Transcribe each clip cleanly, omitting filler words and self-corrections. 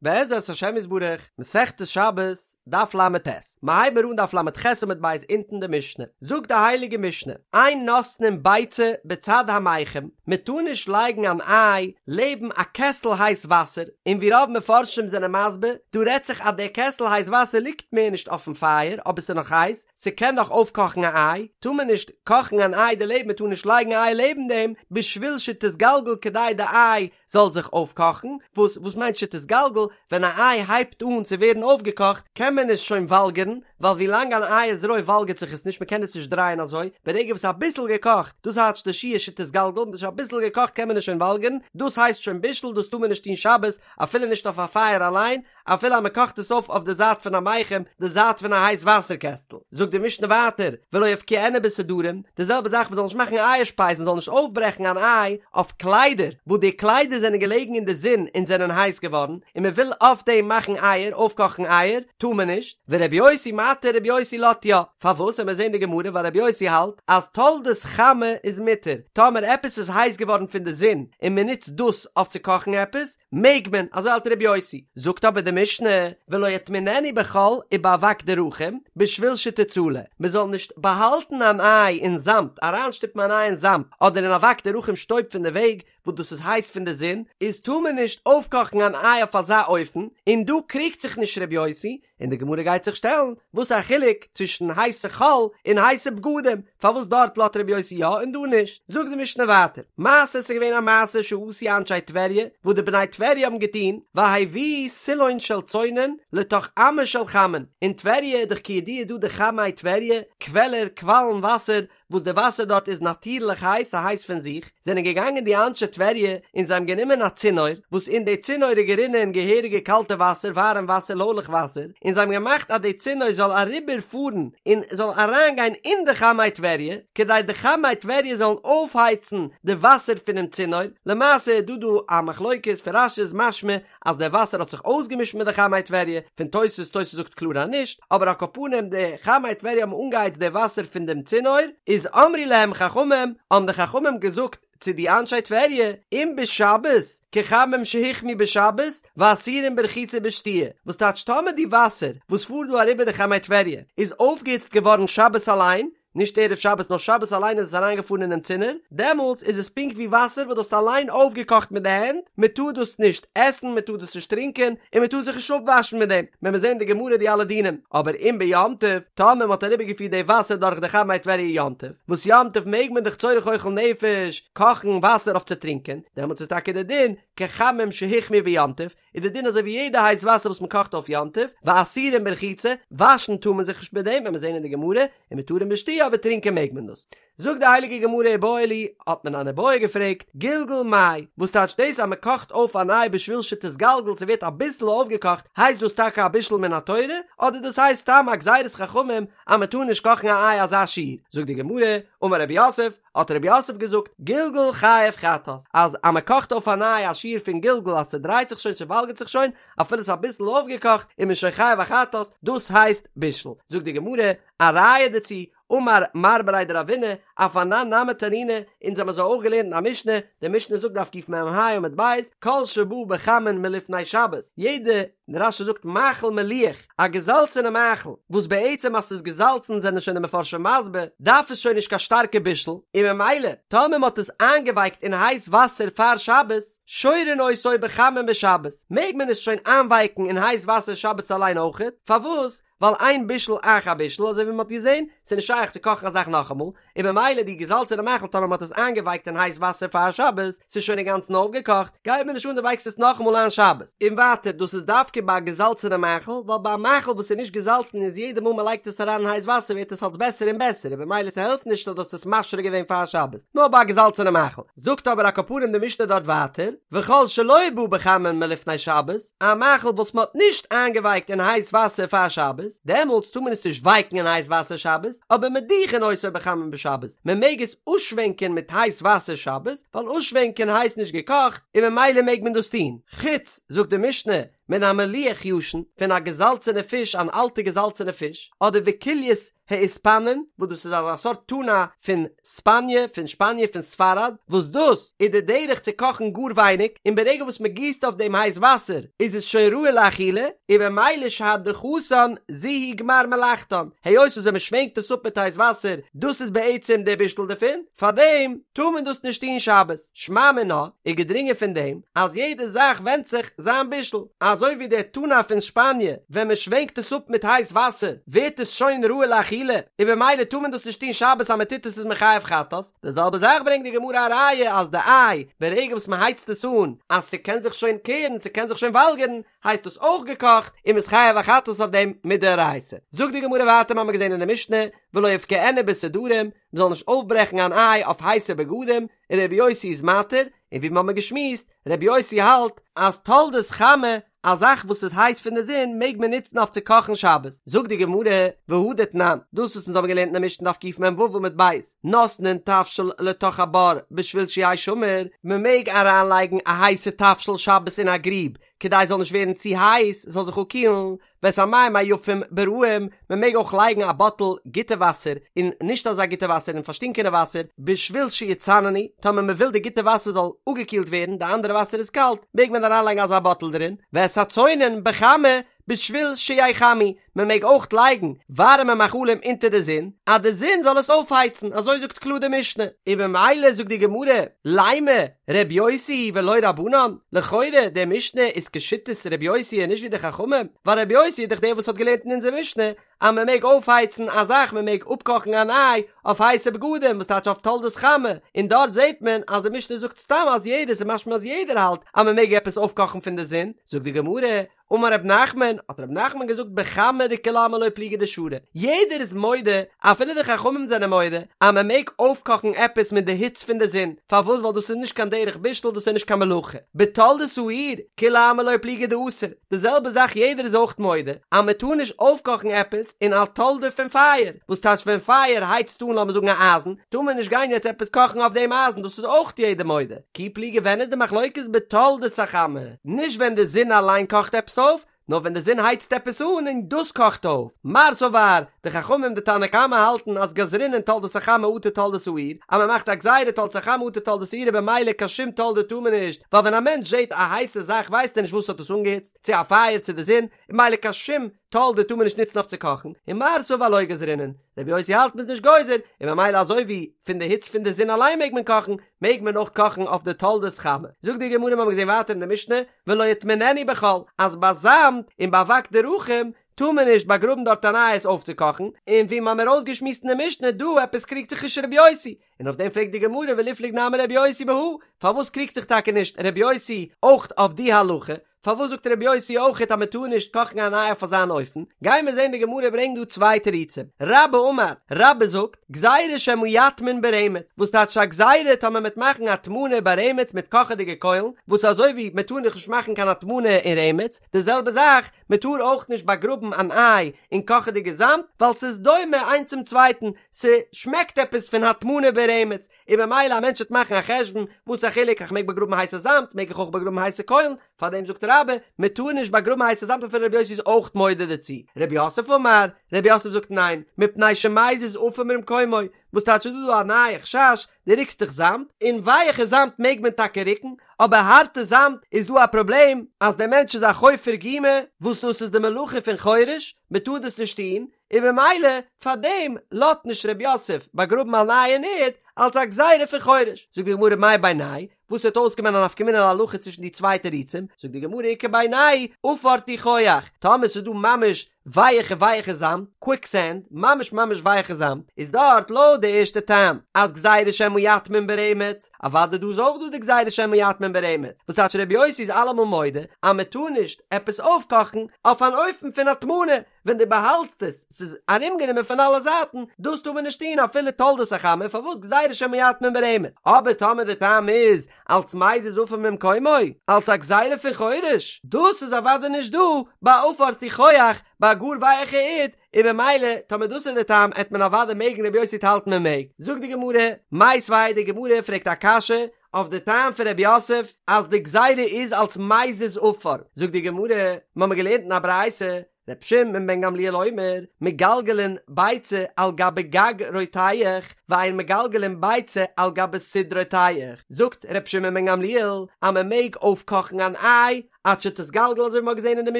בעזרת השם יתברך, מסכת שבת, דף ל"ט, מ'הייבן מיר אן דף ל"ח עמוד ב' אונטן די משנה, זאגט די הייליגע משנה, אין נותנין ביצה בצד המיחם, מען טאר נישט לייגן אן איי לעבן א קעסל הייס וואסער, און ווי רוב מפרשים זענען מסביר, דא רעדט זיך אז דער קעסל הייס וואסער ליגט מער נישט אויפן פייער אבער ס'איז נאך הייס, ס'קען נאך אויפקאכן א איי, טאר מען נישט קאכן אן איי דערלעבן, מען טאר נישט לייגן א איי לעבן דעם, בשביל שתתגלגל כדי די איי זאל זיך אויפקאכן, וואס וואס מיינט שתתגלגל? ווען א איי הייבט אן צו ווערן אויפגעקאכט קען מען עס שוין וואלגערן, ווייל ווי לאנג אן איי איז רוי וואלגערט זיך עס נישט מען קען עס נישט דרייען אזוי, ברגע וואס אביסל געקאכט, דאס טייטש די שיעור שתתגלגל, ווען ס'איז שוין אביסל געקאכט קען מען עס שוין וואלגערן, דאס הייסט שוין בישול דאס טאר מען נישט טון שבת, אפילו נישט אויף א פייער אליין, אפילו אז מען קאכט עס אויף אויף די זייט פון א מיחם, די זייט פון א הייס וואסער קעסטל. זאגט די משנה ווייטער, ולא יפקיענה בסודרים, די זעלבע זאך מען זאל נישט מאכן אייער שפייז, מען זאל נישט אויפברעכן אן איי אויף קליידער, וואס די קליידער זענען געלעגן אין די זון און זענען הייס געווארן, און מען וויל אויף דעם מאכן אייער, אויפקאכן אייער, טאר מען נישט, ורבי יוסי מתיר, רבי יוסי לאזט יא. פארוואס? עמיר זעהן די גמרא ווייל רבי יוסי האלט אז תולדות חמה איז מותר, טאמער עפעס איז הייס געווארן פון די זון און מען נוצט דאס אויף צו קאכן עפעס, מעג מען, אזוי האלט רבי יוסי. זאגט אבער די משנה, ולא יטמיננה בחול ובאבק דרכים, בשביל שתצלה, מען זאל נישט באהאלטן אן איי אין זאמד, אריינשטופן אן איי אין זאמד, אדער אין אבק דרכים שטויב פון די וועג, וואס דאס איז הייס פון די זון, איז טאר מען נישט אויפקאכן אן איי אויף אזא אופן, און דא קריגט זיך נישט רבי יוסי, און די גמרא גייט זיך שטעלן, וואס איז א חילוק צווישן הייסע חול און הייסע בגדים, פארוואס דארט לאזט רבי יוסי יא און דא נישט? זאגט די משנה ווייטער, מעשה ס'איז געווען א מעשה שעשו אנשי טבריה, וואס די בני טבריה האבן געטון, והביאו סילון של צונן לתוך אמה של חמין, אין טבריה איז דאך כידוע דא די חמי טבריה, קוועלער, קוואלן וואסער, וואס די וואסער דארט איז נאטירליך הייס, ס'הייס פון זיך, זענען געגאנגען די אנשי טבריה און זיי האבן גענומען א צינור, וואס אין די צינור איז גערינען געהעריגע קאלטע וואסער, ווארעם וואסער, לוילעך וואסער, און זיי האבן געמאכט אז די צינור זאל אריבער פארן און זאל אריינגיין אין די חמי טבריה, כדי די חמי טבריה זאלן אויפהייצן די וואסער פונעם צינור, למעשה איז דא דא א מחלוקת, פון רש"י איז משמע אז דער וואסער האט זיך אויסגעמישט מיט די חמי טבריה, פון תוס', תוס' זאגט קלאר אז נישט, אבער על כל פנים די חמי טבריה האבן אנגעהייצט די וואסער פון דעם צינור, איז אמרו להם חכמים, האבן די חכמים געזאגט צו די אנשי טבריה, אם בשבת, כחמין שהוחמו בשבת, ואסורים ברחיצה ובשתיה, וואס טייטש טאמער די וואסער וואס פארט דא אריבער די חמי טבריה איז אויפגעהיצט געווארן שבת אליין, נישט ערב שבת נאר שבת אליין איז עס אריינגעפארן אינעם צינור, דעמאלטס איז עס פונקט ווי וואסער וואס דו האסט אליין אויפגעקאכט מיט די הענט, מען טאר דאס נישט עסן, מען טאר דאס נישט טרינקען, און מען טאר זיך נישט אפוואשן מיט דעם, וועלן מיר זען אין די גמרא די אלע דינים, אבער אם ביום טוב, טאמער מען האט אריבערגעפירט די וואסער דורך די חמי טבריה יום טוב, וואס יום טוב מעג מען דאך צורך אוכל נפש קאכן וואסער אויף צו טרינקען, דעמאלטס איז טאקע די דין כחמין שהוחמו ביום טוב, איז די דין אזוי ווי יעדע הייס וואסער וואס מען קאכט אויף יום טוב, ואסורים ברחיצה, וואשן טאר מען זיך נישט מיט דעם, וועלן מיר זען אין די גמרא, ומותרים בשתיה אבער טרינקען מעג מען דאס. זאגט די הייליגע גמרא איבעיא להו, האט מען אן איבעיא געפרעגט, גלגול מאי, וואס טייטשט דאס אז מען קאכט אויף אן איי בשביל שתתגלגל ס'ווערט אביסל אויפגעקאכט, הייסט דאס טאקע א בישול מן התורה, אדער דאס הייסט סתם א גזירת חכמים אז מען טאר נישט קאכן א איי אזא שיעור? זאגט די גמרא, אמר רב יוסף, האט רב יוסף געזאגט, גלגול חייב חטאת, אז אז מען קאכט אויף אן איי א שיעור פון גלגול אז ס'דרייט זיך שוין ס'וואלגערט זיך שוין, אפילו ס'איז אביסל אויפגעקאכט איז מען שוין חייב א חטאת, דאס הייסט בישול. זאגט די גמרא, א ראיה דערצו, אמר מר בריה דרבינא, אף אנן נמי תנינא, אונז האבן אזוי אויך געלערנט אין א משנה, די משנה זאגט דף קמ"ה עמוד ב', כל שבא בחמין מלפני שבת, יעדע רש"י זאגט מאכל מליח, א געזאלצענע מאכל, וואס בעצם אז ס'איז געזאלצן זענען שוין די מפרשים מסביר, דארף עס שוין נישט קיין שטארקע בישול, און ממילא טאמער מ'האט עס איינגעווייקט אין הייס וואסער פאר שבת, שורין אותו בחמין בשבת, מעג מען עס שוין איינווייקן אין הייס וואסער שבת אליין אויכעט, פארוואס? ווייל אין בישול אחר בישול אזוי ווי מ'האט געזען, ס'איז נישט שייך צו קאכן א זאך נאכאמאל, און ממילא די געזאלצענע מאכל טאמער מ'האט עס איינגעווייקט אין הייס וואסער פאר שבת, ס'איז שוין אינגאנצן אויפגעקאכט, גייט מיר נישט אן דו ווייקסט עס נאכאמאל איין שבת. און ווייטער, דאס איז דווקא ביי א געזאלצענע מאכל, ווייל ביי א מאכל וואס איז נישט געזאלצן איז יעדע מאל מ'לייגט עס אריין אין הייס וואסער ווערט עס אלס בעסער און בעסער און במילא ס'העלפט נישט אז דו האסט עס משרה געווען פאר שבת, נאר ביי א געזאלצענע מאכל. זאגט אבער על כל פנים די משנה דארט ווייטער, וכל שלא בא בחמין מלפני שבת, א מאכל וואס מען האט נישט איינגעווייקט אין הייס וואסער פאר שבת, דעמאלטס טאר מען עס נישט ווייקן אין הייס וואסער שבת, אבער מדיחין אותו בחמין בשבת, מען מעג עס אויסשווענקען מיט הייס וואסער שבת, ווייל אויסשווענקען הייסט נישט געקאכט, און ממילא מעג מען דאס טון. חוץ, זאגט די משנה, מן המליח ישן, פון א געזאלצענע פיש, אן אלטע געזאלצענע פיש, אדער וקולייס האיספנין, וואס דאס איז אזא סארט טונא פון ספאניע, פון שפאניע, פון ספרד, וואס דאס איז די דרך צו קאכן גאר ווייניג, און ברגע וואס מען גיסט אויף דעם הייס וואסער איז עס שוין ראוי לאכילה, און במילא שהדחתן זו היא גמר מלאכתן, היות וואס ווען מען שווענקט עס אפ מיט הייס וואסער, דאס איז בעצם דער בישול דערפון, פארדעם טאר מען דאס נישט טון שבת. שמע מינה, איז געדרינגען פון דעם אז יעדע זאך ווענדט זיך זיין בישול, אזוי ווי דער טונא פון שפאניע ווען מען שווענקט עס אפ מיט הייס וואסער ווערט עס שוין ראוי לאכילה, און במילא טאר מען דאס נישט טון שבת אז מען טוט עס איז מען חייב חטאת, די זעלבע זאך ברענגט די גמרא א ראיה אז די איי ברגע וואס מען הייצט עס אן אז ס'קען זיך שוין קערן ס'קען זיך שוין וואלגערן הייסט עס אויך געקאכט און מ'איז חייב א חטאת אויף דעם מדאורייתא. זאגט די גמרא ווייטער מ'האמיר געזען אין די משנה ולא יבקענו בסודרים מ'זאל נישט אויפברעכן אן איי אויף הייסע בגדים, און רבי יוסי איז מתיר, און ווי מ'האמיר געשמועסט, רבי יוסי האלט אז תולדות חמה, א זאך וואס איז הייס פון די זון מעג מען נוצן אויף צו קאכן שבת, זאגט די גמרא, והא דתנן, דאס וואס אונז האבן געלערנט אין די משנה דף קמ"ו עמוד ב', נותנין תבשיל לתוך הבור בשביל שיהא שמור, מ'מעג אריינלייגן א הייסע תבשיל שבת אין א גריב כדי עס זאל נישט ווערן צו הייס, עס זאל זיך אפקילן, ואת המים היפים ברעים, מען מעג אויך לייגן א באטל גוטע וואסער און נישט אזא גוטע וואסער אין פארשטינקענע וואסער, בשביל שיצננו, טאמער מען וויל די גוטע וואסער זאל אפגעקילט ווערן, די אנדערע וואסער איז קאלט, מעג מען אריינלייגן אזא באטל דערין, ואת הצונן בחמה, בשביל שיחמו, מען מעג אויך לייגן ווארעמע מאכלים אונטער די זון, אז די זון זאל עס אויפהייצן, אזוי זאגט קלאר די משנה. און במילא זאגט די גמרא, לימא ר' יוסי היא ולא רבנן, לכאורה די משנה איז כשיטת ר' יוסי און נישט ווי די חכמים, ווייל ר' יוסי איז דאך דער וואס האט געלערנט אין אונזער משנה אז מען מעג אויפהייצן א זאך, מען מעג אפקאכן אן איי אויף הייסע בגדים, וואס טייטש אויף תולדות חמה, און דארט זעט מען אז די משנה זאגט סתם אז יעדער, ס'איז משמע אז יעדער האלט אז מען מעג עפעס אויפקאכן פון די זון, זאגט די גמרא, אמר רב נחמן, האט רב נחמן געזאגט בחמה דכולי עלמא לא פליגי דשרי, יעדער איז מודה, אפילו די חכמים זענען מודה, אז מען מעג אויפקאכן עפעס מיט די היץ פון די זון, פארוואס ווייל דאס איז נישט קיין דרך בישול דאס איז נישט קיין מלאכה, בתולדות האור, כולי עלמא לא פליגי דאסור, די זעלבע זאך יעדער איז אויך מודה, אז מען טאר נישט אויפקאכן עפעס אין א תולדה פון פייער, וואס טייטש ווען פייער הייצט אן לאמיר זאגן א אייזן, טאר מען נישט גיין יעצט עפעס קאכן אויף דעם אייזן, דאס איז אויך יעדער מודה, כי פליגי ווען איז די מחלוקת בתולדות החמה? נישט ווען די זון אליין קאכט עפעס אויף, נאר ווען די זון הייצט עפעס אן און דאס קאכט אויף. מר סבר, די חכמים די תנא קמא האלטן אז גזרינן תולדות החמה אטו תולדות האור, אז מען מאכט א גזירה תולדות החמה אטו תולדות האור און במילא קיין שום תולדה טאר מען נישט, ווייל ווען א מענטש זעט א הייסע זאך ווייסט ער נישט וואס האט עס אנגעהיצט, צו א פייער צו די זון, און במילא קיין שום תולדה טאר מען נישט נוצן אויף צו קאכן, און מר סבר לא גזרינן, רבי יוסי האלט מ'איז נישט גוזר, און ממילא אזוי ווי פון די היץ פון די זון אליין מעג מען קאכן, מעג מען אויך קאכן אויף די תולדות חמה. זאגט די גמרא מ'האמיר געזען ווייטער אין די משנה, ולא יטמיננה בחול, אז ביי זאמד און ביי אבק דרכים טאר מען נישט באגראבן דארט אן איי עס אויפצוקאכן, און ווי מ'האמיר אויסגעשמועסט אין די משנה דא עפעס קריגט זיך נישט רבי יוסי, און אויף דעם פרעגט די גמרא וליפלוג נמי רבי יוסי בהא, פארוואס קריגט זיך טאקע נישט רבי יוסי אויך אויף די הלכה, פארוואס זאגט רבי יוסי אויכעט אז מען טאר נישט קאכן אן איי אויף אזאן אופן? גייען מיר זען די גמרא ברענגט דא צוויי תירוצים. רבה אמר, רבה זאגט, גזירה שמא יטמין ברמץ, וואס טייטש א גזירה טאמער מ'עט מאכן הטמנה ברמץ מיט קאכעדיגע קוילן, וואס אזוי ווי מען טאר דאך נישט מאכן קיין הטמנה אין רמץ, די זעלבע זאך, מען טאר אויך נישט באגראבן אן איי אין קאכעדיגע זאמד, ווייל ס'איז דומה איינס צום צווייטן, ס'שמעקט עפעס פון הטמנה ברמץ, און במילא א מענטש וועט מאכן א חשבון, וואס א חילוק איך מעג באגראבן הייסע זאמד, מעג איך אויך באגראבן הייסע קוילן, פארדעם זאגט רבה, מען טאר נישט באגראבן הייסע זאמד אפילו רבי יוסי איז אויך מודה דערצו. רב יוסף אמר, רב יוסף זאגט ניין, מפני שמזיז עפר ממקומו, וואס טייטש איז דא דא א נייע חשש, דו ריקסט דאך זאמד, און ווייעכע זאמד מעג מען טאקע ריקן, אבער הארטע זאמד איז דא א פראבלעם אז דער מענטש איז א חופר גומא, וואס דאס איז די מלאכה פון חורש, מען טאר דאס נישט טון, און במילא פאר דעם לאזט נישט ר' יוסף באגראבן אן איי אין ערד אלס א גזירה פון חורש. זאגט די גמרא מאי בינייהו, וואס וועט אויסקומען א נפקא מינה להלכה צווישן די צוויי תירוצים, זאגט די גמרא איכא בינייהו עפר תיחוח, טאמער ס'איז דא ממש ווייעכע ווייעכע זאמד, קוויק סענד, ממש ממש ווייעכע זאמד, איז דארט לויט די ערשטע טעם אז גזירה שמא יטמין ברמץ, אוודאי דא איז אויך דא די גזירה שמא יטמין ברמץ, וואס טייטש ר' יוסי איז אלעמאל מודה אז מען טאר נישט עפעס אויפקאכן אויף אן אופן פון הטמנה, ווען דו באהאלטסט עס, ס'איז ארומגענומען פון אלע זייטן, דאס טאר מען נישט טון אפילו תולדות החמה, פארוואס גזירה שמא יטמין ברמץ? אבער טאמער די טעם איז אלץ מזיז עפר ממקומו, אלץ א גזירה פון חורש, דאס איז אוודאי נישט דא ביי עפר תיחוח, ביי א גאר ווייעכע ערד, און במילא טאמער דאס איז די טעם עט מען אוודאי מעגן רבי יוסי וועט האלטן מען מעג. זאגט די גמרא, מיתיבי, די גמרא פרעגט א קשיא. אויף די טעם פון רב יוסף אז די גזירה איז אלס מזיז עפר, זאגט די גמרא, מ'האמיר געלערנט אין א ברייתא, ר' שמעון בן גמליאל אומר, מגלגלין ביצה על גבי גג רותח, ואין מגלגלין ביצה על גבי סיד רותח, זאגט ר' שמעון בן גמליאל אז מען מעג אויפקאכן אן איי עד שתתגלגל אזוי ווי מען האט געזען אין די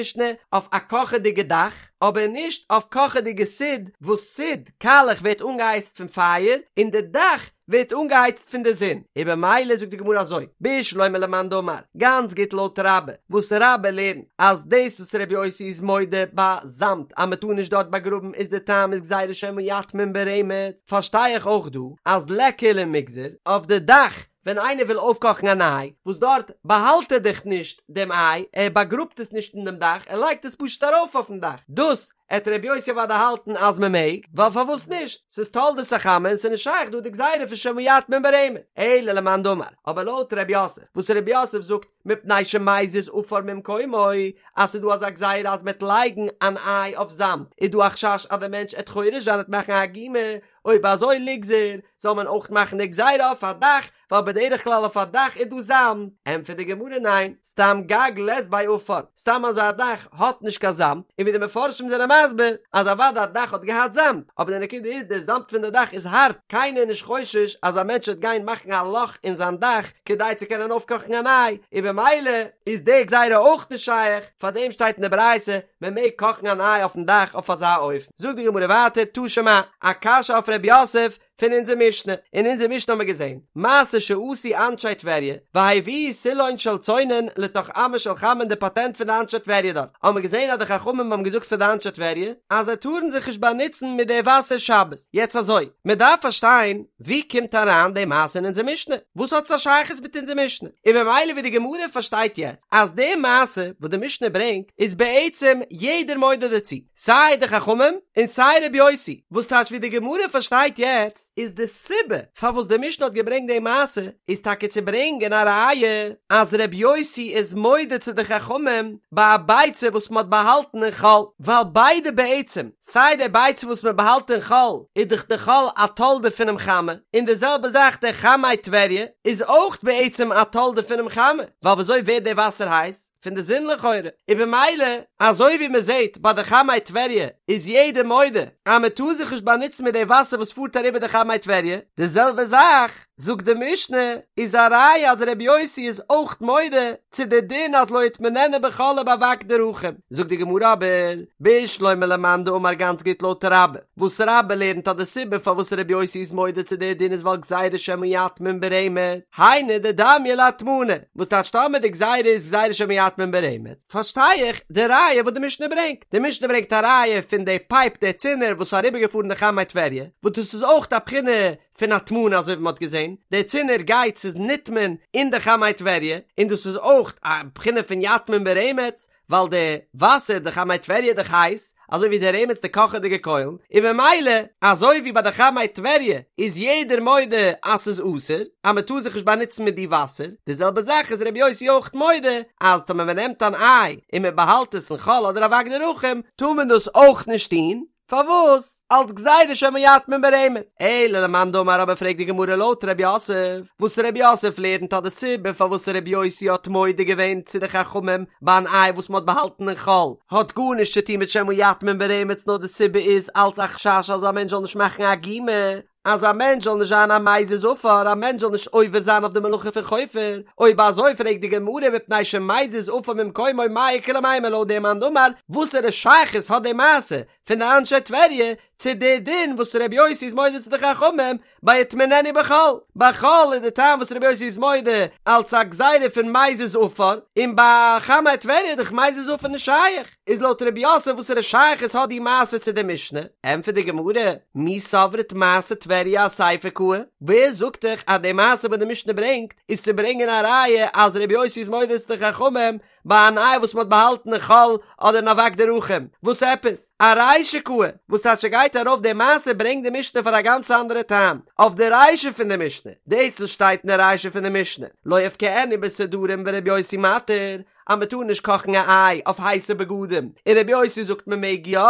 משנה אויף א קאכעדיגע דאך, אבער נישט אויף קאכעדיגע סיד, וואס סיד, קאלעך, ווערט אנגעהייצט פון פייער, און די דאך ווערט אנגעהייצט פון די זון, און במילא זאגט די גמרא אזוי, בשלמא למאן דאמר, גאנץ גוט לויט רבה, וואס רבה לערנט אז דאס וואס רבי יוסי איז מודה ביי זאמד אז מען טאר נישט דארט באגראבן איז די טעם איז גזירה שמא יטמין ברמץ, פארשטיי איך אויך דא אז ליכא למיגזר אויף די דאך ווען איינער וויל אויפקאכן אן איי, וואס דארט באהאלט ער דאך נישט דעם איי, ער באגראבט עס נישט אין דעם דאך, ער לייגט עס פשוט ארויף אויפן דאך, דאס עט רבי יוסי אוודאי האלטן אז מען מעג, ווייל פארוואס נישט, ס'איז תולדות החמה און ס'איז נישט שייך דא די גזירה פון שמא יטמין ברמץ, אלא למאן דאמר, אבער לויט רב יוסף, וואס רב יוסף זאגט מפני שמזיז עפר ממקומו, אז ס'איז דא אזא גזירה אז מ'עט לייגן אן איי אויף זאמד, איז דא א חשש אז דער מענטש עט חורש זיין עט מאכן א גומא, אויב אזוי ליגזר, זאל מען אויך מאכן די גזירה אויף א דאך, ווייל בדרך כלל אויף א דאך איז דא זאמד, ענטפערט די גמרא ניין, סתם גג לית ביה עפר, סתם אזא דאך האט נישט קיין זאמד, און ווי די מפרשים זענען מסביר אז אוודאי א דאך האט געהאט זאמד, אבער די נקודה איז די זאמד פון די דאך איז הארט, קיינער איז נישט חושש אז א מענטש וועט גיין מאכן א לאך אין זיין דאך כדי צו קענען אויפקאכן אן איי, און במילא איז די גזירה אויך נישט שייך, פארדעם שטייט אין די ברייתא מען מעג קאכן אן איי אויפן דאך אויף אזא אופן. זאגט די גמרא ווייטער תא שמע, א קשיא אויף ר' יוסף, פון אונזער משנה, אין אונזער משנה האבן מיר געזען, מעשה שעשו אנשי טבריה, והביאו סילון של צונן לתוך אמה של חמין די פאטענט פון די אנשי טבריה דארט, האבן מיר געזען אז די חכמים האבן געזאגט פאר די אנשי טבריה, אז זיי טארן זיך נישט באנוצן מיט די וואסער שבת, יעצט אזוי, מען דארף פארשטיין, ווי קומט אריין די מעשה אין אונזער משנה? וואס האט עס א שייכות מיט אונזער משנה? און ממילא ווי די גמרא פארשטייט יעצט, אז די מעשה וואס די משנה ברענגט, איז בעצם יעדער מודה דערצו, סיי די חכמים און סיי רבי יוסי, וואס טייטש ווי די גמרא פארשטייט יעצט איז די סיבה פארוואס די משנה האט געברענגט די מעשה איז טאקע צו ברענגען א ראיה אז רבי יוסי איז מודה צו די חכמים ביי א ביצה וואס מען האט באהאלטן אין חול, ווייל ביידע בעצם סיי די ביצה וואס מען באהאלט אין חול איז דאך די חול א תולדה פונעם חמה, און די זעלבע זאך די חמי טבריה איז אויך בעצם א תולדה פונעם חמה, ווייל וויאזוי ווערט די וואסער הייס? פון די זון לכאורה, און במילא אזוי ווי מען זעט ביי די חמי טבריה איז יעדער מודה אז מען טאר זיך נישט באנוצן מיט די וואסער וואס פארט אריבער די חמי טבריה, די זעלבע זאך זאגט די משנה איז א ראיה אז רבי יוסי איז אויך מודה צו די דין אז לא יטמיננה בחול ובאבק דרכים, זאגט די גמרא אבער בשלמא למאן דאמר גאנץ גוט לויט רבה, וואס רבה לערנט אז די סיבה פארוואס רבי יוסי איז מודה צו די דין איז ווייל גזירה שמא יטמין ברמץ, היינו דדמיא להטמנה, וואס טייטש טאמער די גזירה איז גזירה שמא יטמין ברמץ, פארשטיי איך די ראיה וואס די משנה ברענגט, די משנה ברענגט א ראיה פון די פייפ די צינור וואס איז אריבערגעפארן די חמי טבריה, וואס דאס איז אויך א בחינה פון הטמנה אזוי ווי מען האט געזען, די צינור גייט ס'איז נטמן אין די חמי טבריה, און דאס איז אויך א בחינה פון יטמין ברמץ, ווייל די וואסער די חמי טבריה איז דאך הייס, אזוי ווי די רמץ די קאכעדיגע קוילן, און ממילא אזוי ווי ביי די חמי טבריה איז יעדער מודה אז ס'איז אסור, אז מ'טאר זיך נישט באנוצן מיט די וואסער, די זעלבע זאך איז רבי יוסי אויך מודה אז טאמער מ'נעמט אן איי און מ'באהאלט עס אין חול אדער אבק דרכים טאר מען דאס אויך נישט טון, פארוואס? אלס גזירה שמא יטמין ברמץ. אלא למאן דאמר אבער פרעגט די גמרא לויט ר' יוסף, וואס ר' יוסף לערנט אז די סיבה פארוואס ר' יוסי האט מודה געווען צו די חכמים ביי אן איי וואס מ'האט באהאלטן אין חול האט גארנישט צו טון מיט שמא יטמין ברמץ נאר די סיבה איז אלס א חשש אז א מענטש זאל נישט מאכן א גומא אז א מענטש זאל נישט זיין א מזיז עפר, א מענטש זאל נישט עובר זיין אויף די מלאכה פון חופר, אויב אזוי פרעגט די גמרא מפני שמזיז עפר ממקומו מאי איכא למימר לויט דעם מאן דאמר, וואסערע שייכות האט די מעשה פון די אנשי טבריה צו די דין וואס רבי יוסי איז מודה צו די חכמים ביי יטמיננה בחול, ביי חול איז די טעם וואס רבי יוסי איז מודה אלץ א גזירה פון מזיז עפר, און ביי חמי טבריה איז דאך מזיז עפר נישט שייך. איז לויט רב יוסף וואסערע שייכות האט די מעשה צו די משנה? ענטפערט די גמרא, מי סברת מעשה טבריה אסיפא קאי, ווער זאגט דיך אז די מעשה וואס די משנה ברענגט איז צו ברענגען א ראיה אז רבי יוסי איז מודה צו די חכמים ביי אן איי וואס מען האט באהאלטן אין חול אדער אין אבק דרכים? וואס עפעס? ארישא קאי, וואס טייטש ס'גייט ארויף די מעשה ברענגט די משנה פאר א גאנץ אנדערע טעם אויף די רישא פון די משנה, דאס וואס שטייט אין די רישא פון די משנה לא יפקיענה בסודרים ורבי יוסי מתיר, אז מען טאר נישט קאכן א איי אויף הייסע בגדים, און רבי יוסי זאגט מען מעג יא,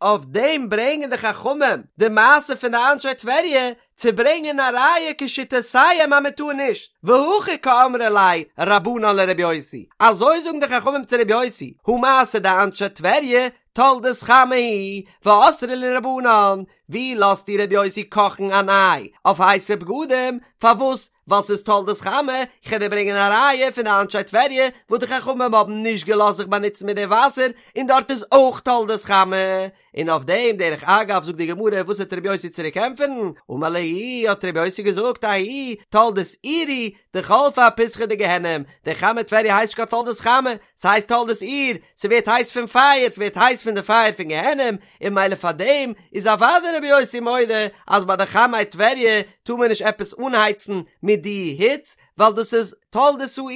אויף דעם ברענגען די חכמים די מעשה פון די אנשי טבריה, צו ברענגען א ראיה כשיטותיהם אז מען טאר נישט, והכי קאמרי ליה רבנן לרבי יוסי, אזוי זאגן די חכמים צו רבי יוסי, הא מעשה דאנשי טבריה תולדת חמה היא, ואסרי להו רבנן, ווי לאזט דיר רבי יוסי קאכן אן איי אויף הייסע בגדים, פארוואס? ווייל ס'איז תולדת חמה, איך וועל דיר ברענגען א ראיה פון די אנשי טבריה וואס די חכמים האבן נישט געלאזט זיך באנוצן מיט די וואסער, און דארט איז אויך תולדת חמה. און אויף דעם דרך אגב זאגט די גמרא וואס וועט רבי יוסי צוריק ענטפערן, אמר להו האט רבי יוסי געזאגט ההוא תולדת אור היא דחלפא אפיתחא דגיהנם, די חמי טבריה הייסט נישט קיין תולדת חמה, ס'הייסט תולדת אור, ס'ווערט הייס פון פייער, ס'ווערט הייס פון די פייער פון גיהנם, און ממילא פאר דעם איז אוודאי רבי יוסי מודה אז ביי די חמי טבריה טאר מען נישט עפעס אנהייצן מיט די היץ, ווייל דאס איז תולדת האור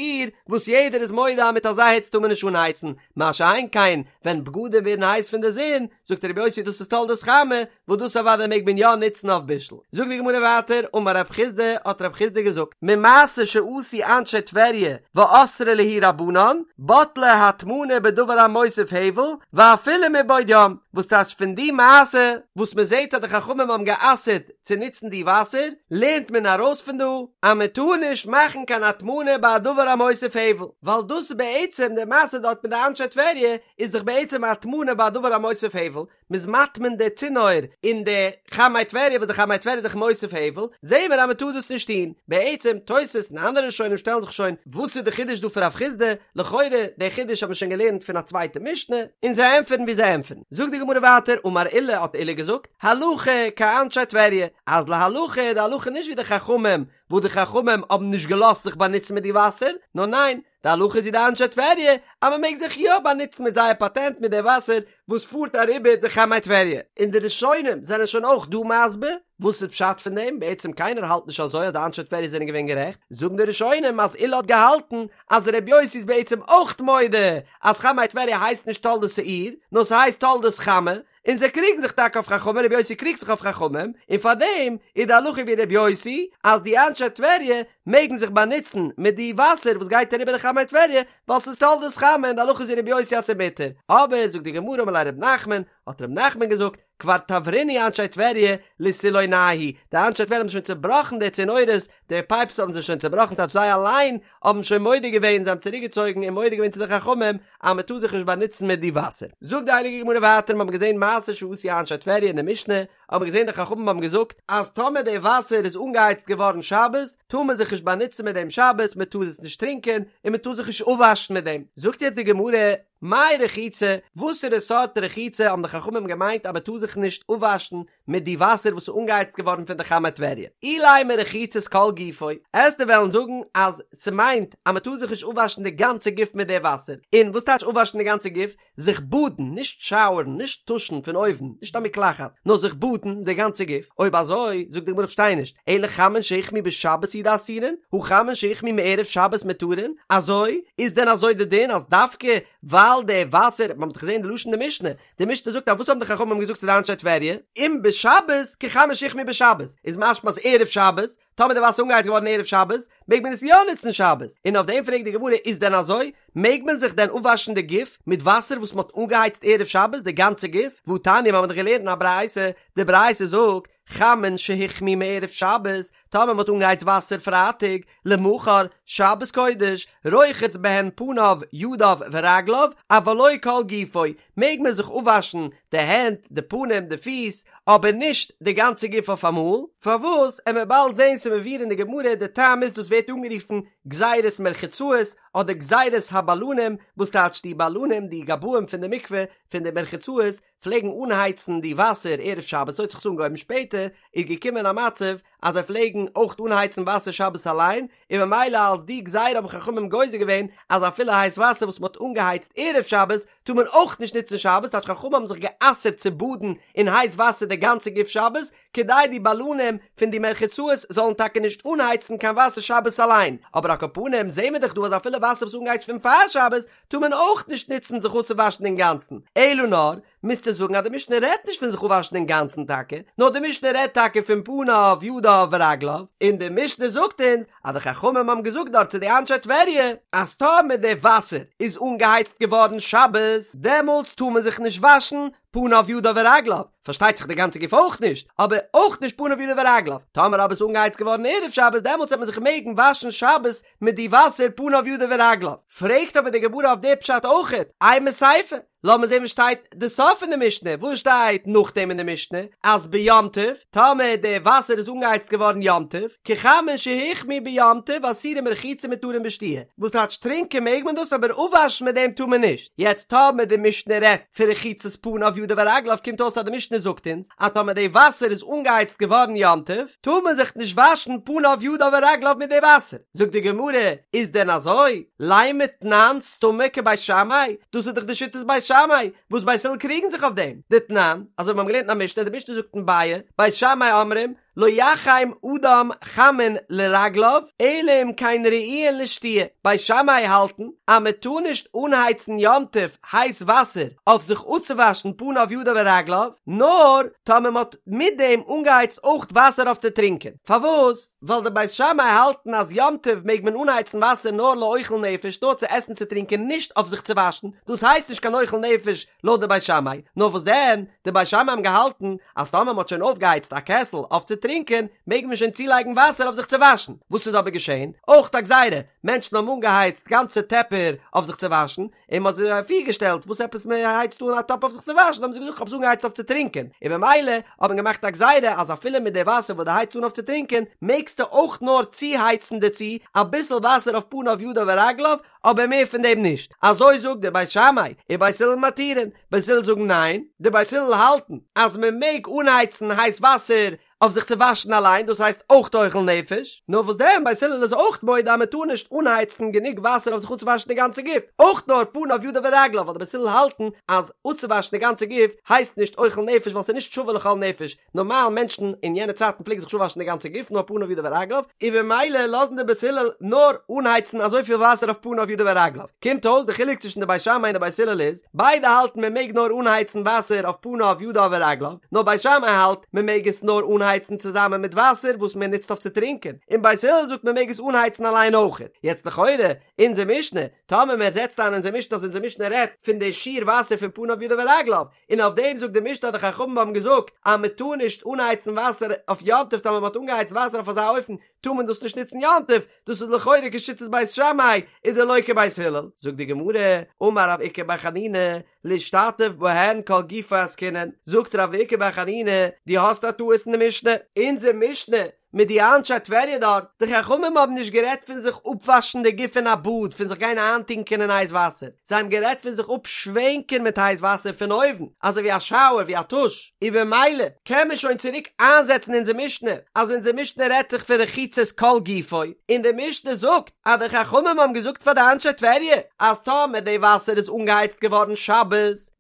וואס יעדער איז מודה אז מיט אזא היץ טאר מען נישט אנהייצן, מה שאין כן ווען בגדים ווערן הייס פון די זון, זאגט רבי יוסי דאס איז תולדת חמה, וואס דאס אוודאי מעג מען יא נוצן אויף בישול. זאגט די גמרא ווייטער, אמר רב חסדא, האט רב חסדא געזאגט, ממעשה שעשו אנשי טבריה ואסרי להו רבנן, בטלה הטמנה בדבר המוסיף הבל, ואפילו מבעוד יום, וואס טייטש פון די מעשה, וואס מען זעט אז די חכמים האבן גע'אסר'ט צו נוצן די וואסער, לערנט מען ארויס פון דא, אז מען טאר נישט מאכן קיין הטמנה ביי א דבר המוסיף הבל, ווייל דאס איז בעצם די מעשה דארט מיט די אנשי טבריה, איז דאך בעצם א הטמנה ביי א דבר המוסיף הבל, מ'איז מטמין די צינור אין די חמי טבריה וואס די חמי טבריה איז דאך מוסיף הבל, זעהן מיר אז מ'טאר דאס נישט טון. בעצם, תוס' און אנדערע ראשונים שטעלן זיך שוין, וואס איז די חידוש דא פון רב חסדא? לכאורה, די חידוש האט מען שוין געלערנט פון א צווייטע משנה, און זיי ענטפערן ווי זיי ענטפערן. זאגט די גמרא ווייטער, אמר עולא האט עולא געזאגט, הלכה כאנשי טבריה, אז להלכה איז די הלכה נישט ווי די חכמים, וואס די חכמים האבן נישט געלאזט זיך באנוצן מיט די וואסער, נאר ניין, די הלכה איז ווי די אנשי טבריה אז מען מעג זיך יא באנוצן מיט זייער פאטענט מיט די וואסער וואס פארט אריבער די חמי טבריה. און די ראשונים זענען שוין אויך דא מסביר וואס איז פשט פון דעם, בעצם קיינער האלט נישט אזוי אז די אנשי טבריה זענען געווען גערעכט, זאגן די ראשונים אז עולא האט געהאלטן אז ר' יוסי איז בעצם אויך מודה אז חמי טבריה הייסט נישט תולדות האור נאר ס'הייסט תולדות חמה, און זיי קריגן זיך טאקע אויף חכמים, רבי יוסי קריגט זיך אויף חכמים, און פאר דעם איז די הלכה ווי רבי יוסי, אז די אנשי טבריה מעגן זיך באנוצן מיט די וואסער וואס גייט אריבער די חמי טבריה, ווייל ס'איז תולדות חמה און די הלכה איז ווי רבי יוסי אז ס'איז מותר. אבער זאגט די גמרא אמר ליה רב נחמן, האט רב נחמן געזאגט, כבר תברינהו אנשי טבריה לסילונייהו, די אנשי טבריה האבן שוין צובראכן די צינורות, די פייפס האבן זיי שוין צובראכן טייטש זיי אליין האבן שוין מודה געווען, זיי האבן צוריק געצויגן און מודה געווען צו די חכמים אז מען טאר זיך נישט באנוצן מיט די וואסער. זאגט די הייליגע גמרא ווייטער, מיר האבן געזען מעשה שעשו אנשי טבריה אין די משנה, האבן מיר געזען די חכמים האבן געזאגט אז טאמער די וואסער איז אנגעהייצט געווארן שבת, טאר מען זיך נישט באנוצן מיט דעם שבת, מען טאר עס נישט טרינקען, און מען טאר זיך נישט אפוואשן מיט דעם. זאגט יעצט די גמרא, מאי רחיצה, וואסערע סארט רחיצה האבן די חכמים געמיינט אז מען טאר זיך נישט אפוואשן מיט די וואסער וואס איז אנגעהייצט געווארן פון די חמי טבריה. אילימא רחיצת כל גופו, עסטו וועלן זאגן אז ס'מיינט אז מ'טאר זיך נישט אפוואשן די גאנצע גוף מיט די וואסער. און וואס טייטש אפוואשן די גאנצע גוף? זיך באדן, נישט שאוערן, נישט טושן פון אויבן, נישט א מקלחת, נאר זיך באדן די גאנצע גוף. אויב אזוי, זאגט די גמרא כ'פארשטיי נישט, אלא חמין שהוחמו בשבת הוא דאסורין, הא חמין שהוחמו מערב שבת מותרין? אזוי? איז דען אזוי די דין אז דווקא ווייל די וואסער, מ'האט דאך געזען די לשון די משנה, די משנה זאגט אז וואס האבן די חכמים געזאגט צו די אנשי טבריה? אם בשבת כחמין שהוחמו בשבת, איז משמע אז ערב שבת, טאמער די וואסער איז אנגעהייצט געווארן ערב שבת, מעג מען עס יא נוצן שבת, און אויף דעם פרעגט די גמרא איז דען אזוי? מעג מען זיך דען אפוואשן די גוף מיט וואסער וואס מען האט אנגעהייצט ערב שבת די גאנצע גוף? והתניא מיר האבן דאך געלערנט אין א ברייתא, די ברייתא זאגט, חמין שהוחמו מערב שבת, טאמער מען האט אנגעהייצט וואסער פרייטאג, למחר, שבת קודש, רוחץ בהן פניו, ידיו ורגליו, אבל לא כל גופו, מעג מען זיך אפוואשן די הענט, די פנים, די פיס, אבער נישט די גאנצע גוף אויפאמאל, פארוואס? עמיר באלד זען ס'מבואר אין די גמרא, די טעם איז דאס ווערט אנגערופן גזירת מרחצאות, אדער גזירת הבלנים, וואס טייטש די בלנים, די גבאים פון די מקווה, פון די מרחצאות, פלעגן אנהייצן די וואסער ערב שבת, אזוי האט זיך עס אנגעהויבן, שפעטער איז געקומען א מצב אז זיי פלעגן אויך אנהייצן וואסער שבת אליין, און ממילא אלס די גזירה האבן חכמים גוזר געווען אז אפילו הייס וואסער וואס מען האט אנגעהייצט ערב שבת טאר מען אויך נישט נוצן שבת, טייטש חכמים האבן זיך גע'אסר'ט צו באדן אין הייס וואסער די גאנצע גוף שבת, כדי די בלנים פון די מרחצאות זאלן טאקע נישט אנהייצן קיין וואסער שבת אליין, אבער על כל פנים זעהן מיר דאך דא אז אפילו וואסער וואס איז אנגעהייצט פון פאר שבת טאר מען אויך נישט נוצן זיך אפצואוואשן אינגאנצן, אלא נאר. מוזטו זאגן אז די משנה רעדט נישט פון זיך אפוואשן אינגאנצן טאקע, נאר די משנה רעדט טאקע פון פניו ידיו ורגליו, און די משנה זאגט אונז אז די חכמים האבן געזאגט דארט צו די אנשי טבריה אז טאמער די וואסער איז אנגעהייצט געווארן שבת דעמאלטס טאר מען זיך נישט וואשן פניו ידיו ורגליו, פארשטייט זיך די גאנצע גוף אויך נישט, אבער אויך נישט פניו ידיו ורגליו, טאמער אבער איז אנגעהייצט געווארן ערב שבת דעמאלטס וועט מען זיך מעגן וואשן שבת מיט די וואסער פניו ידיו ורגליו, פרעגט אבער די גמרא אויף די פשט אויכעט, אימא סיפא, לאמיר זען וואס שטייט די סוף פון די משנה, וואס שטייט נאכדעם אין די משנה, אז ביום טוב, טאמער די וואסער איז אנגעהייצט געווארן יום טוב, כחמין שהוחמו ביום טוב אסורים ברחיצה ומותרים בשתיה, וואס טייטש טרינקען מעג מען דאס אבער אפוואשן מיט דעם טאר מען נישט, יעצט טאמער די משנה רעדט פון רחיצת פניו ידיו ורגליו קומט אויס אז די משנה זאגט אונז אז טאמער די וואסער איז אנגעהייצט געווארן יום טוב טאר מען זיך נישט וואשן פניו ידיו ורגליו מיט די וואסער, זאגט די גמרא, איז דען אזוי? לימא תנן סתמא כבית שמאי, דאס איז דאך די שיטת בית שמאי, וואס בית הלל קריגן זיך אויף דעם, דתנן, אזוי ווי מיר האבן געלערנט אין א משנה, די משנה זאגט אין ביעא, בית שמאי אומרים, לא יחם אדם חמין לרגליו, אלא אם כן ראויין לשתיה, בית שמאי האלטן אז מען טאר נישט אנהייצן יום טוב הייס וואסער אויף זיך אפצואוואשן פניו ידיו ורגליו, נאר טאמער מען האט מיט דעם אנגעהייצט אויך וואסער אויף צו טרינקען. פארוואס? ווייל די בית שמאי האלטן אז יום טוב מעג מען אנהייצן וואסער נאר לאוכל נפש, נאר צו עסן צו טרינקען נישט אויף זיך צו וואשן, דאס הייסט נישט קיין אוכל נפש לויט די בית שמאי, נאר וואס דען, די בית שמאי האבן געהאלטן אז טאמער מ'האט שוין אויפגעהייצט א קעסל אויף צו טרינקען, מעג מען שוין צולייגן וואסער אויף זיך צו וואשן. וואס איז אבער געשען? אויך א גזירה, מענטשן האבן אנגעהייצט גאנצע טעפער אויף זיך צו וואשן, און מ'האט זיי אפירגעשטעלט, וואס עפעס מ'הייצט אן א טאפ אויף זיך צו וואשן, האבן זיי געזאגט כ'האב עס אנגעהייצט אויף צו טרינקען, און במילא האט מען געמאכט א גזירה אז אפילו מיט די וואסער וואס דו הייצט אן אויף צו טרינקען, מעגסטו אויך נאר צוהייצן דערצו אביסל וואסער אויף פניו ידיו ורגליו, אבער מער פון דעם נישט, אזוי זאגט דער בית שמאי, ובית הלל מתירין, בית הלל זאגן ניין, די בית הלל האלטן אז מען מעג אנהייצן הייס וואסער אויף זיך צו וואשן אליין, דאס הייסט אויך אוכל נפש, נאר וואס דען בית הלל איז אויך מודה אז מען טאר נישט אנהייצן גענוג וואסער אויף זיך אפצואוואשן די גאנצע גוף, אויך נאר פניו ידיו ורגליו, ווייל די בית הלל האלטן אז אפצואוואשן די גאנצע גוף הייסט נישט אוכל נפש ווייל ס'איז נישט שווה לכל נפש, נארמאל מענטשן אין יענע צייטן פלעגן זיך נישט אפוואשן די גאנצע גוף נאר פניו ידיו ורגליו, און במילא לאזן די בית הלל נאר אנהייצן אזויפיל וואסער אויף פניו ידיו ורגליו. קומט אויס די חילוק צווישן די בית שמאי און די בית הלל איז, ביידע האלטן מען מעג נאר אנהייצן וואסער אויף פניו ידיו ורגליו, נאר בית שמאי האלט מען מעג עס נאר אנהייצן צוזאמען מיט וואסער וואס מען נוצט אויף צו טרינקען, און בית הלל זאגט מען מעג עס אנהייצן אליין אויכעט. יעצט לכאורה, אונזער משנה, טאמער מען זעצט איין אונזער משנה אז אונזער משנה רעדט פון די שיעור וואסער פון פניו ידיו ורגליו, און אויף דעם זאגט די משנה אז די חכמים האבן געזאגט אז מען טאר נישט אנהייצן וואסער אויף יום טוב טאמער מען האט אנגעהייצט וואסער אויף אזא אופן טאר מען דאס נישט נוצן יום טוב, דאס איז לכאורה כשיטת בית שמאי ודלא כבית הלל, זאגט די גמרא, אמר רב איקא בר חנינא, להשתטף בהן כל גופו עסקינן, זאגט רב איקא בר חנינא, דו האסט א טעות אין די משנה, אונזער משנה מיט די אנשי טבריה דארט, די חכמים האבן נישט גערעדט פון זיך אפוואשן די גוף אין א באד, פון זיך גיין איינטונקען אין הייס וואסער, זיי האבן גערעדט פון זיך אפשווענקען מיט הייס וואסער פון אויבן, אזוי ווי א שאוער, ווי א טוש, און במילא קען מען שוין צוריק איינזעצן אונזער משנה, אז אונזער משנה רעדט זיך פון רחיצת כל גופו, און די משנה זאגט אז די חכמים האבן געזאגט פאר די אנשי טבריה אז טאמער די וואסער איז אנגעהייצט געווארן שבת,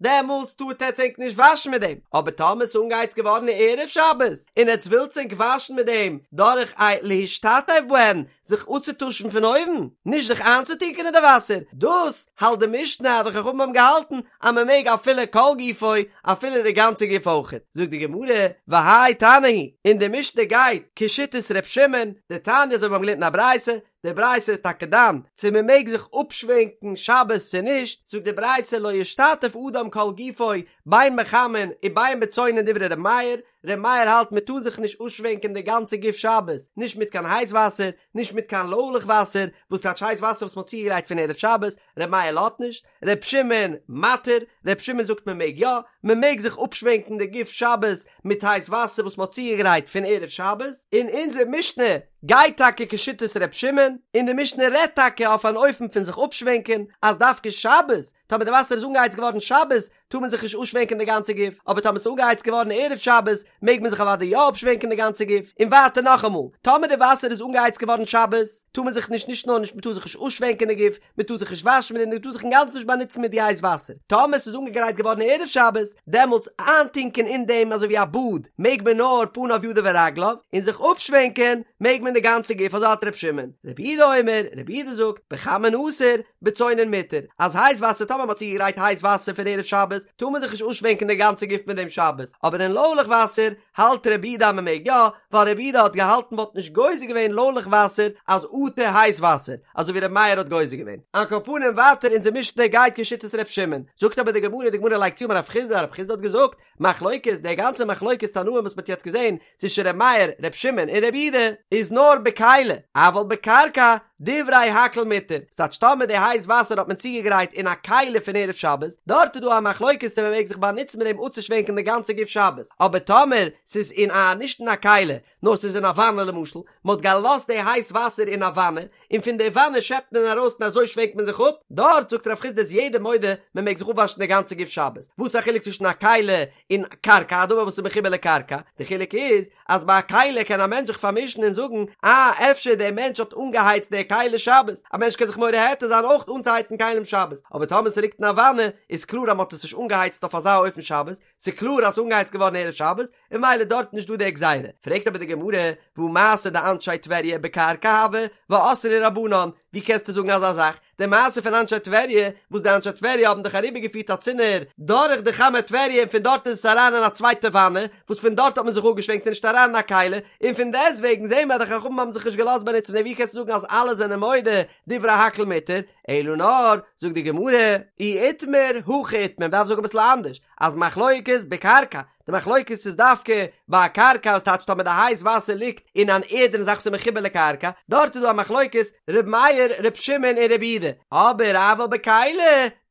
דעמאלטס טארט עטץ ענק נישט וואשן מיט דעם, אבער טאמער ס'איז אנגעהייצט געווארן ערב שבת, און עטץ ווילטס ענק וואשן מיט דעם דורך א להשתטף בהן, זיך אפצוטושן פון אויבן, נישט זיך איינצוטונקען אין די וואסער, דאס האלט די משנה אז די חכמים האבן געהאלטן אז מען מעג אפילו כל גופו, אפילו די גאנצע גוף אויכעט. זאגט די גמרא, והאי תנא היא, און די משנה גייט כשיטת ר' שמעון, דתניא אזוי ווי מיר האבן געלערנט אין א ברייתא, די ברייתא איז טאקע דן צו מען מעג זיך אפשווענקן שבת צו נישט, זאגט די ברייתא לא ישתטף אדם כל גופו בין בחמין ובין בצונן דברי ר' מאיר, ר' מאיר האלט מען טאר זיך נישט אפשווענקען די גאנצע גוף שבת, נישט מיט קיין הייס וואסער, נישט מיט קיין לוילעך וואסער, וואס טייטש הייס וואסער וואס מען האט צוגעגרייט פון ערב שבת, ר' מאיר לאזט נישט, ר' שמעון מתיר, ר' שמעון זאגט מען מעג יא, מען מעג זיך אפשווענקן די גוף שבת מיט הייס וואסער וואס מען האט צוגעגרייט פון ערב שבת, און אונזער משנה גייט טאקע כשיטת ר' שמעון, און די משנה רעדט טאקע אויף אן אופן פון זיך אפשווענקען, אז דווקא שבת, טאמער די וואסער איז אנגעהייצט געווארן שבת, טאר מען זיך נישט אפשווענקען די גאנצע גוף, אבער טאמער ס'איז אנגעהייצט געווארן ערב שבת, מעג מען זיך אוודאי יא אפשווענקען די גאנצע גוף, און ווייטער נאכאמאל, טאמער די וואסער איז אנגעהייצט געווארן שבת, טאר מען זיך נישט נישט נאר נישט מ'טאר זיך נישט אפשווענקען די גוף, מ'טאר זיך נישט וואשן מיט דעם, מ'טאר זיך אינגאנצן נישט באנוצן מיט די הייס וואסער, טאמער ס'איז אנגעגרייט געווארן ערב שבת, דעמאלטס איינטונקען אין דעם אזוי ווי א באד, מעג מען נאר פניו ידיו ורגליו, און זיך אפשווענקען מעג מען. מען די גאנצע גוף אזוי האלט ר' שמעון, רבי יהודה אומר, רבי יהודה זאגט, בחמין אסור, בצונן מותר, אז הייס וואסער טאמער מען האט צוגעגרייט הייס וואסער פון ערב שבת, טאר מען זיך נישט אנשווענקען די גאנצע גוף מיט דעם שבת, אבער אין לוילעך וואסער האלט רבי יהודה אז מען מעג יא, ווייל רבי יהודה האט געהאלטן מ'וואלט נישט גוזר געווען לוילעך וואסער אז אטו הייס וואסער, אזוי ווי רבי מאיר האט גוזר געווען. על כל פנים ווייטער אונזער משנה גייט כשיטת ר' שמעון, זאגט אבער די גמרא, די גמרא לייגט צו אמר רב חסדא, רב חסדא האט געזאגט, מחלוקת, די גאנצע מחלוקת תנאים וואס מ'האט יעצט געזען צווישן ר' מאיר, ר' שמעון און ר' יהודה, איז נאר בכלי, אבל בקרקע, דברי הכל מותר, ס'טייטש טאמער די הייס וואסער האט מען צוגעגרייט אין א כלי פון ערב שבת, דארט איז דא א מחלוקת צו מ'מעג זיך באנוצן מיט דעם אפצושווענקען די גאנצע גוף שבת, אבער טאמער ס'איז אין א נישט אין א כלי, נאר ס'איז אין א וואנע למשל, מ'האט געלאזט די הייס וואסער אין א וואנע, און פון די וואנע שעפט מען ארויס און אזוי שווענקט מען זיך אפ, דארט זאגט רב חסדא איז יעדער מודה מען מעג זיך אפוואשן די גאנצע גוף שבת, וואס איז א חילוק צווישן א כלי און קרקע, א דבר וואס איז מחובר לקרקע, די חילוק איז אז ביי א כלי קען א מענטש זיך פארמישן און זאגן אה אפשר דער מענטש האט אנגעהייצט די כלי שבת, א מענטש קען זיך מורה היתר זיין אויך אנצוהייצן כלים שבת, אבער טאמער ס'ליגט אין א וואנע איז קלאר אז מ'האט עס נישט אנגעהייצט אויף אזא אופן שבת, ס'איז קלאר אז ס'איז אנגעהייצט געווארן ערב שבת, און ממילא דארט נישט דא די גזירה. פרעגט אבער די גמרא, והא מעשה דאנשי טבריה בקרקע הוה, ואסרו רבנן, ווי קענסטו זאגן אזא זאך? די מעשה פון אנשי טבריה, וואס די אנשי טבריה האבן דאך אריבערגעפירט א צינור דורך די חמי טבריה און פון דארט איז עס אריין אין א צווייטע וואנע, וואס פון דארט האט מען זיך אפגעשווענקט ס'איז נישט אריין אין א כלי, און פון דעסטוועגן זעהן מיר אז די חכמים האבן זיך נישט געלאזט באנוצן מיט דעם, ווי קענסטו זאגן אז אלע זענען מודה דברי הכל מותר? אלא נאר, זאגט די גמרא, אי איתמר, הכי איתמר, מ'דארף זאגן אביסל אנדערש, אז מחלוקת בקרקע, די מחלוקת איז דווקא ביי א קרקע וואס טייטש טאמער די הייס וואסער ליגט אין אן ערדענע זאך וואס איז מחובר לקרקע, דארט איז דא א מחלוקת ר' מאיר, ר' שמעון און ר' יהודה, אבער אבל בכלי,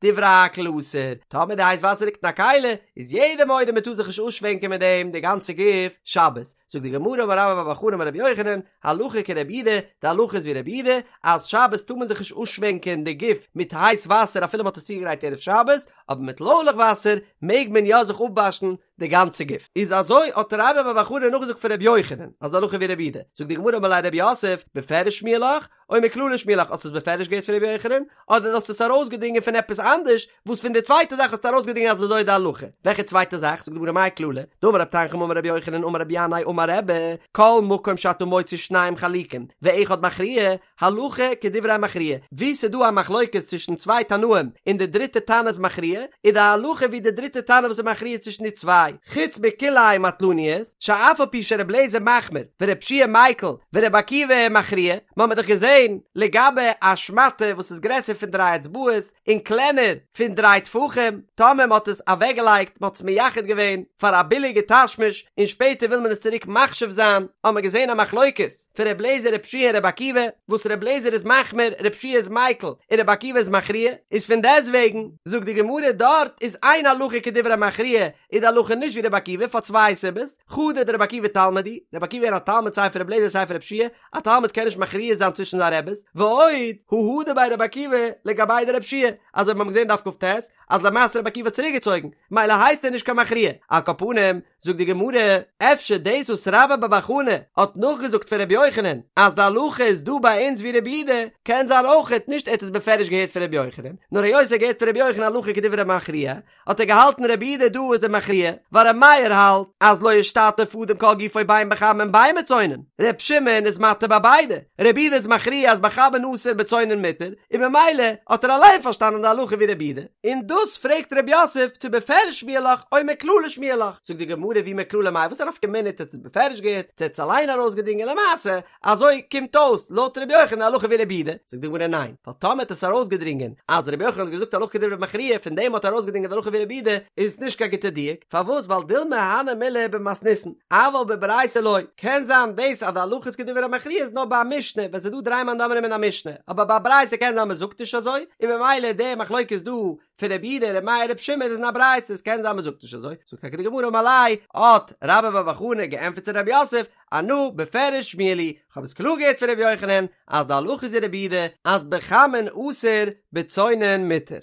דברי הכל אסור, טאמער די הייס וואסער ליגט אין א כלי, איז יעדער מודה מען טאר זיך נישט אויסשווענקען מיט דעם די גאנצע גוף שבת, זאגט די גמרא אמר רבה בר בר חנה אמר רבי יוחנן, הלכה כרבי יהודה, די הלכה איז ווי רבי יהודה, אז שבת טאר מען זיך נישט אויסשווענקען די גוף מיט הייס וואסער אפילו מען האט עס צוגעגרייט ערב שבת, אבער מיט לוילעך וואסער מעג מען יא זיך אפוואשן די גאנצע גוף. איז אזוי האט רבה בר בר חנה נאכגעזאגט פון רבי יוחנן אז די הלכה ווי רבי יהודה, זאגט די גמרא אמר ליה רב יוסף, בפירוש שמיע לך, או מכללא שמיע לך, האסט עס בפירוש געהערט פון רבי יוחנן, אדער האסטו עס ארויסגעדרינגען פון עפעס אנדערש, וואס פון די צווייטע זאך האסטו ארויסגעדרינגען אז אזוי איז די הלכה? וועלכע צווייטע זאך? זאגט די גמרא מאי כללא, דאמר רב תנחום אמר רבי יוחנן אמר רבי ינאי אמר רבי, כל מקום שאתה מוצא שניים חלוקים ואחד מכריע, הלכה כדברי המכריע, וואו ס'איז דא א מחלוקת צווישן צוויי תנאים און די דריטע תנא איז מכריע, איז די הלכה ווי די דריטע תנא וואס איז מכריע צווישן די צוויי, חוץ מכלאיים מטלניות, שאף על פי שר' אליעזר מחמיר ור' יהושע מיקל ור' עקיבא מכריע, מ'האמיר דאך געזען לגבי א שמאטע וואס איז גרעסער פון דריי אצבעות און קלענער פון דריי טפחים, טאמער מ'האט עס אוועקגעלייגט, מ'האט עס מייחד געווען פאר א ביליגע תשמיש און שפעטער וויל מען עס צוריק מחשיב זיין, האמיר געזען א מחלוקת פון ר' אליעזר ר' יהושע און ר' עקיבא, וואס ר' אליעזר איז מחמיר, ר' יהושע איז מיקל, און ר' עקיבא איז מכריע, איז פון דעסטוועגן, זאגט די גמרא דארט איז אין הלכה כדברי מכריע, איז די הלכה נישט ווי ר' עקיבא פאר צוויי סיבות, חדא דר' עקיבא תלמיד הוא, ר' עקיבא איז א תלמיד סיי פון ר' אליעזר סיי פון ר' יהושע, א תלמיד קען נישט מכריע זיין צווישן זיין רעבעס, ועוד, הא הדר ביה ר' עקיבא לגביה דר' יהושע, אזוי ווי מיר האבן געזען דף כ"ט, אז למעשה ר' עקיבא האט צוריק געצויגן, מילא הייסט ער נישט קיין מכריע, על כל פנים, זאגט די גמרא, אפשר דאס וואס רבה בר בר חנה האט נאכגעזאגט פון רבי יוחנן אז די הלכה איז דא ביי אונז ווי רבי יהודה, קען זיין אויכעט נישט ער האט עס בפירוש געהערט פון רבי יוחנן, נאר היות ער האט געהערט פון רבי יוחנן הלכה כדברי מכריע, האט ער געהאלטן רבי יהודה דא איז דער מכריע, ווייל רבי מאיר האלט אז לא ישתתף אדם כל גופו בין בחמין בין בצונן, ר' שמעון איז מתיר ביי ביידע, רבי יהודה איז מכריע אז בחמין אסור בצונן מותר, און ממילא האט ער אליין פארשטאנען די הלכה ווי רבי יהודה, און דאס פרעגט ר' יוסף צו בפירוש שמיע לך או מכללא שמיע לך, זאגט די גמרא ואי מכללא מאי וואס א נפקא מינה צו ער האט עס בפירוש געהערט צו ער האט עס אליין ארויסגעדרינגען למעשה אזוי קומט אויס לויט רבי יוחנן די הלכה ווי רבי יהודה, זאגט די גמרא ניין, ווייל טאמער האט עס ארויסגעדרינגען אז רבי יוחנן האט געזאגט הלכה כדברי מכריע פון דעם האט ער ארויסגעדרינגען די הלכה ווי רבי יהודה איז עס נישט קיין גוטע דיוק, פארוואס ווייל דילמא הני מילי במתניתין אבל בברייתא לא, קען זיין דאס אז די הלכה איז כדברי מכריע איז נאר ביי א משנה ווען ס'איז דא דריי מאן דאמרים אין א משנה, אבער ביי א ברייתא קען זיין מ'זאגט נישט אזוי, און ממילא די מחלוקת דא פון רבי יהודה רבי מאיר רבי שמעון איז אין א ברייתא עס קען זיין מ'זאגט נישט אזוי, זאגט טאקע די גמרא אמר ליה, האט רבה בר בר חנה געענטפערט צו רב יוסף, אנא בפירוש שמיע לי, כ'האב עס קלאר געהערט פון רבי יוחנן אז די הלכה איז ווי רבי יהודה אז בחמין אסור בצונן מותר.